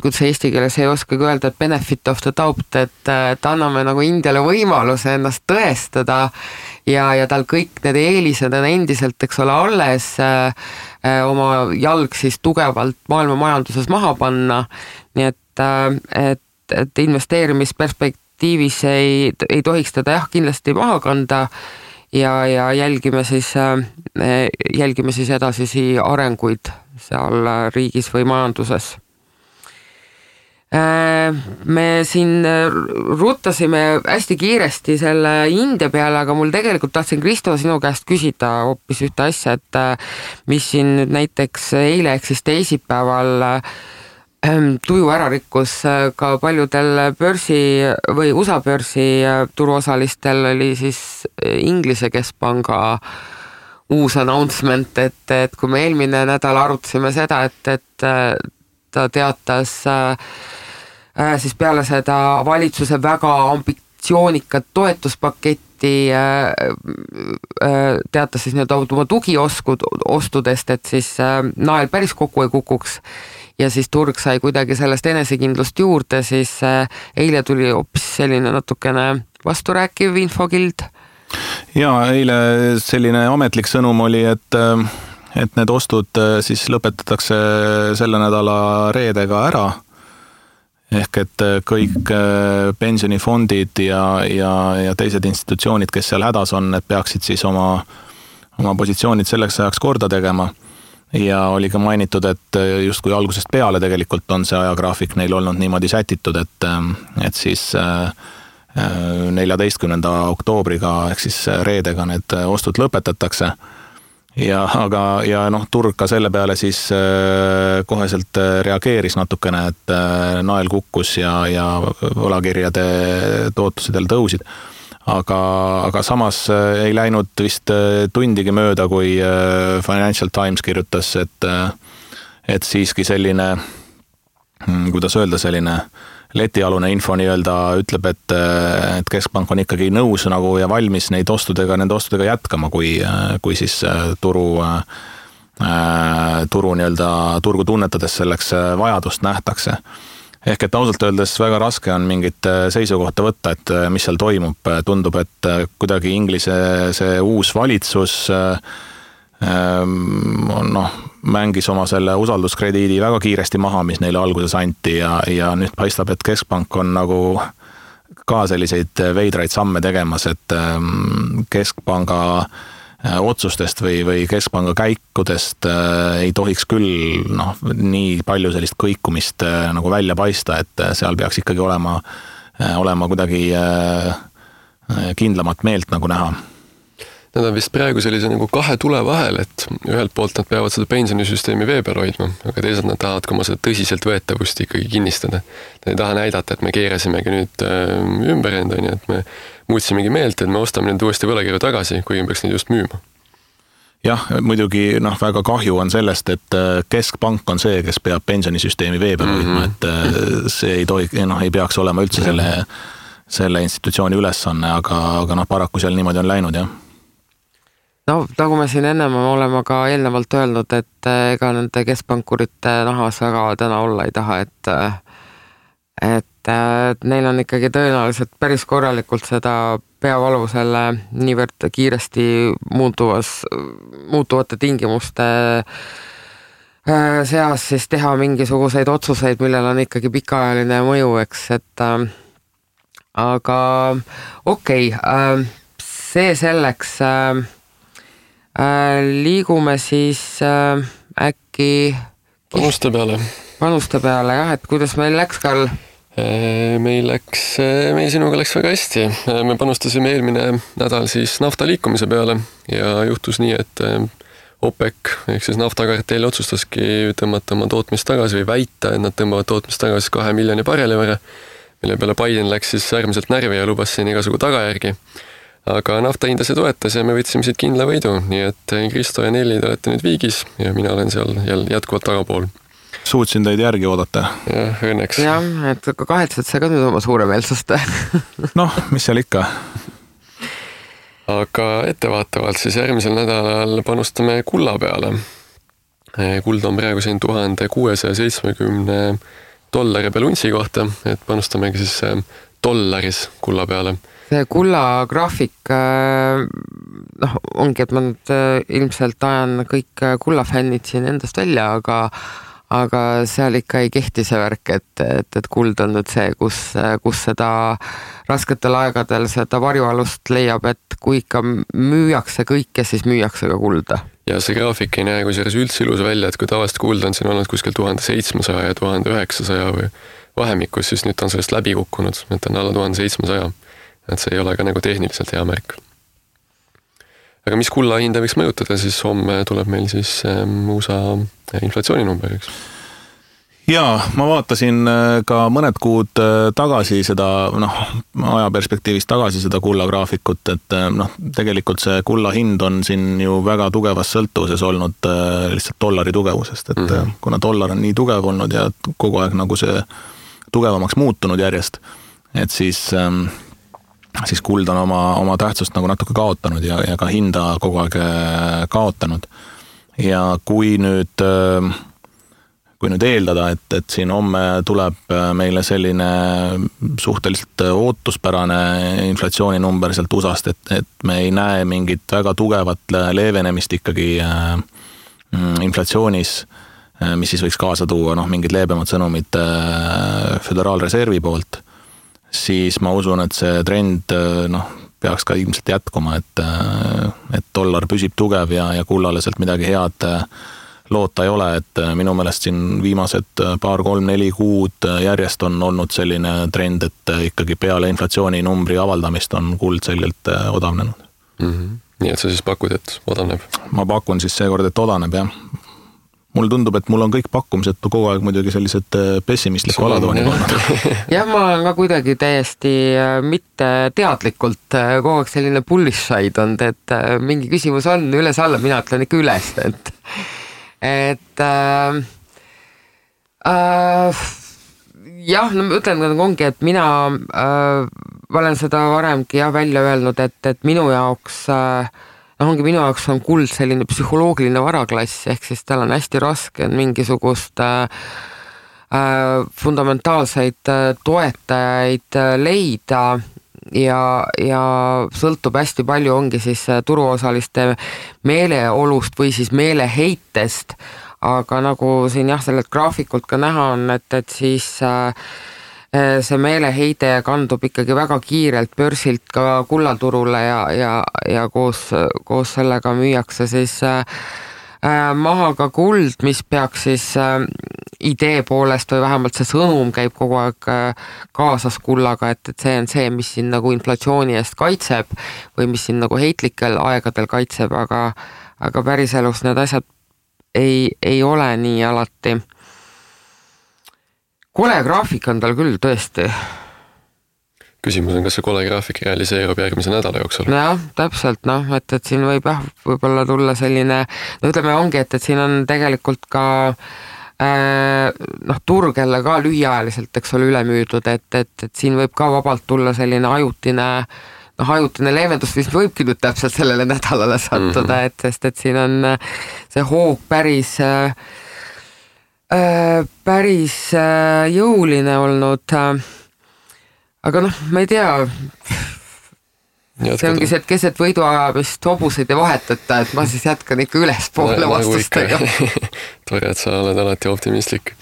kuidas eesti keeles ei oskagi öelda, et benefit of the doubt, et anname nagu Indiale võimaluse ennast tõestada ja tal kõik need eelised on endiselt, eks ole, alles oma jalg siis tugevalt maailma majanduses maha panna, nii et investeerimisperspektiivis ei tohiks teda kindlasti maha kanda ja jälgime siis edasisi arenguid seal riigis või majanduses. Me siin ruttasime hästi kiiresti selle India peale, aga mul tegelikult tahtsin, Kristo, sinu käest küsida hoopis ühte asja, et mis siin nüüd näiteks eile ehk siis teisipäeval tuju ära rikkus ka paljudel börsi või USA börsi turuosalistel oli siis Inglise keskpanga uus announcement, et kui me eelmine nädal arutasime seda, et ta teatas siis peale seda valitsuse väga ambitsioonikat toetuspaketti teatas siis nii-öelda oma tugiostudest, et siis nael päris kokku ei kukuks ja siis turg sai kuidagi sellest enesekindlust juurde, siis eile tuli hoopis selline natukene vasturääkiv infokild. Ja eile selline ametlik sõnum oli, et need ostud siis lõpetatakse selle nädala reedega ära. Ehk et kõik pensionifondid ja teised institutsioonid, kes seal hädas on, need peaksid siis oma positsioonid selleks ajaks korda tegema. Ja oli ka mainitud, et just kui algusest peale tegelikult on see ajagraafik neil olnud niimoodi sätitud, et siis 14. oktoobriga ehk siis reedega need ostud lõpetatakse. Ja turg ka selle peale siis koheselt reageeris natukene, et nael kukkus ja võlakirjade tootlused jälle tõusid. Aga samas ei läinud vist tundigi mööda, kui Financial Times kirjutas, et siiski selline, kuidas öelda, selline letialune info nii-öelda ütleb, et keskpank on ikkagi nõus nagu ja valmis nende ostudega jätkama, kui siis turu nii-öelda turgu tunnetades selleks vajadust nähtakse. Ehk et ausalt öeldes väga raske on mingit seisukohta võtta, et mis seal toimub. Tundub, et kuidagi Inglise see uus valitsus mängis oma selle usalduskrediidi väga kiiresti maha, mis neile alguses anti ja nüüd paistab, et keskpank on nagu ka selliseid veidraid samme tegemas, et keskpanga otsustest või keskpanga käikudest ei tohiks küll nii palju sellist kõikumist nagu välja paista, et seal peaks ikkagi olema kuidagi kindlamat meelt nagu näha. Nad on vist praegu sellise nagu kahe tule vahel, et ühelt poolt nad peavad seda pensionisüsteemi vee peal hoidma, aga teisalt nad tahavad ka oma seda tõsiselt võetavust ikkagi kinnistada. Nad ei taha näidata, et me keerasimegi nüüd ümber enda, et me muutsimegi meelt, et me ostame nüüd uuesti võlakirju tagasi, kuigi me peaks neid just müüma. Jah, muidugi väga kahju on sellest, et keskpank on see, kes peab pensionisüsteemi vee peal hoidma, et see ei peaks olema üldse selle institutsiooni ülesanne, aga paraku seal niimoodi on läinud, jah. No, nagu me siin ennem oleme ka eelnevalt öelnud, et ega nende keskpankurite nahas väga täna olla ei taha, et neil on ikkagi tõenäoliselt päris korralikult seda peavalu selle niivõrd kiiresti muutuvate tingimuste seas siis teha mingisuguseid otsuseid, millel on ikkagi pikaajaline mõju, eks, et aga okei, see selleks liigume siis äkki panuste peale, jah, et kuidas meil läks, Karl? Meil sinuga läks väga hästi. Me panustasime eelmine nädal siis nafta liikumise peale ja juhtus nii, et OPEC ehk siis naftakartell otsustaski tõmmata oma tootmist tagasi või väita, et nad tõmbavad tootmist tagasi 2 miljoni barreli võrra, mille peale Biden läks siis äärmiselt närvi ja lubas siin igasugu tagajärgi. Aga nafta hinda see toetas ja me võtsime siit kindla võidu, nii et Kristo ja Nelli te olete nüüd viigis ja mina olen seal jätkuvalt tagapool. Suutsin teid järgi oodata. Jah, õnneks. Jah, et kahetsed sa ka nüüd oma suuremeelsust. Mis seal ikka? Aga ettevaatavalt siis järgmisel nädalal panustame kulla peale. Kuld on praegu siin $1670 peal untsi kohta, et panustamegi siis dollaris kulla peale. See kulla graafik ongi, et ma nüüd ilmselt ajan kõik kullafännid siin endast välja, aga seal ikka ei kehti see värk, et kuld on nüüd see, kus seda rasketel aegadel seda varjualust leiab, et kui ikka müüakse kõike, siis müüakse ka kulda. Ja see graafik ei näe kusjuures üldse ilus välja, et kui tavaliselt kuld on siin olnud kuskil 1700 ja 1900 või vahemikus, siis nüüd on sellest läbi kukkunud, et on alla 1700. Et see ei ole ka nagu tehniliselt hea märk. Aga mis kulla hinda võiks mõjutada, siis homme tuleb meil siis USA inflatsiooninumber, eks? Jaa, ma vaatasin ka mõned kuud tagasi seda, ajaperspektiivist tagasi seda kulla graafikut, et tegelikult see kulla hind on siin ju väga tugevas sõltuvuses olnud lihtsalt dollari tugevusest, et kuna dollar on nii tugev olnud ja kogu aeg nagu see tugevamaks muutunud järjest, et siis kuld on oma tähtsust nagu natuke kaotanud ja ka hinda kogu aeg kaotanud. Ja kui nüüd eeldada, et siin homme tuleb meile selline suhteliselt ootuspärane inflatsiooninumber sealt USAst, et me ei näe mingit väga tugevat leevenemist ikkagi inflatsioonis, mis siis võiks kaasa tuua mingid leebemad sõnumid Föderaalreservi poolt, siis ma usun, et see trend peaks ka ilmselt jätkuma, et dollar püsib tugev ja kullale sealt midagi head loota ei ole, et minu meelest siin viimased 2-3-4 kuud järjest on olnud selline trend, et ikkagi peale inflatsiooninumbri avaldamist on kuld selgelt odavnenud. Nii et sa siis pakud, et odaneb? Ma pakun siis seekord, et odaneb, jah. Mulle tundub, et mul on kõik pakkumised kogu aeg muidugi sellised pessimistliku alatooni olnud. Jah, ma olen ka kuidagi täiesti mitte teadlikult kogu aeg selline bullish side on, et mingi küsimus on üles-alla, mina ütlen ikka üles, jah, no ma ütlen, ongi, et mina olen seda varemgi välja öelnud, et minu jaoks on kuld selline psühholoogiline varaklass, ehk siis tal on hästi raske mingisugust fundamentaalseid toetajaid leida ja sõltub hästi palju ongi siis turuosaliste meeleolust või siis meeleheitest, aga nagu siin sellelt graafikult ka näha on, et siis see meeleheide kandub ikkagi väga kiirelt börsilt ka kullaturule ja koos sellega müüakse siis maha ka kuld, mis peaks siis idee poolest või vähemalt see sõnum käib kogu aeg kaasas kullaga, et see on see, mis siin nagu inflatsiooni eest kaitseb või mis siin nagu heitlikel aegadel kaitseb, aga päriselus need asjad ei ole nii alati. Kole graafik on tal küll tõesti. Küsimus on, kas see kole graafik realiseerub järgmise nädala jooksul? Jah, täpselt, et siin võib-olla tulla selline, ütleme ongi, et siin on tegelikult ka turg jälle ka lühiajaliselt, eks ole, ülemüüdud, et siin võib ka vabalt tulla selline ajutine leevendus, mis võibki nüüd täpselt sellele nädalale sattuda, sest siin on see hoog päris jõuline olnud. Aga ma ei tea, see ongi see, et keset võiduajamist hobuseid ei vahetata, et ma siis jätkan ikka ülespoole vastustega. Tore, et sa oled alati optimistlik.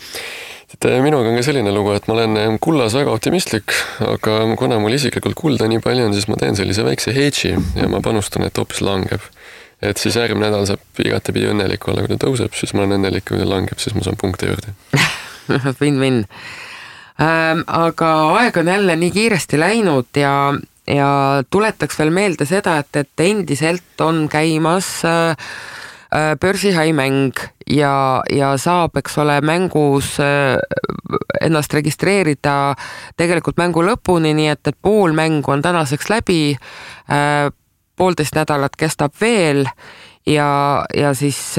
Minuga on ka selline lugu, et ma olen kullas väga optimistlik, aga kuna mul isiklikult kulda nii palju on, siis ma teen sellise väikse hedži ja ma panustan, et hoopis langeb. Et siis järgmine nädal saab igatepidi õnnelik olla, kui ta tõuseb, siis ma olen õnnelik, kui ta langeb, siis ma saan punkte juurde. Win-win. Aga aeg on jälle nii kiiresti läinud ja tuletaks veel meelde seda, et endiselt on käimas börsihaimäng ja saab, eks ole, mängus ennast registreerida tegelikult mängu lõpuni, nii et pool mängu on tänaseks läbi, 1,5 nädalat kestab veel ja siis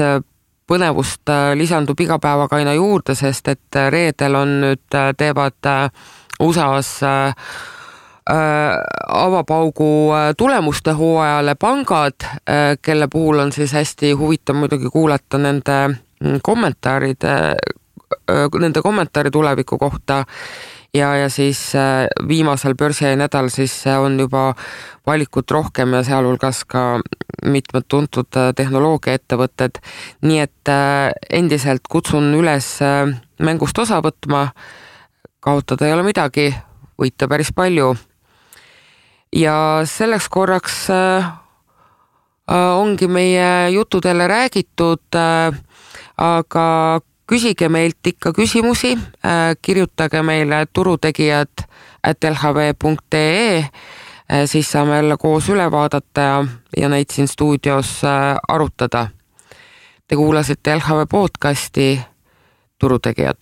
põnevust lisandub iga päevaga aina juurde, sest et reedel on nüüd teevad USAs avapaugu tulemuste hooajale pangad, kelle puhul on siis hästi huvitav muidugi kuulata nende kommentaari tuleviku kohta ja siis viimasel börsinädal siis on juba valikut rohkem ja sealhulgas ka mitmed tuntud tehnoloogiaettevõtted, nii et endiselt kutsun üles mängust osa võtma, kaotada ei ole midagi, võita päris palju. Ja selleks korraks ongi meie jutudele räägitud, aga küsige meilt ikka küsimusi, kirjutage meile turutegijad@lhv.ee, siis saame jälle koos üle vaadata ja neid siin stuudios arutada. Te kuulasite LHV podcasti Turutegijad.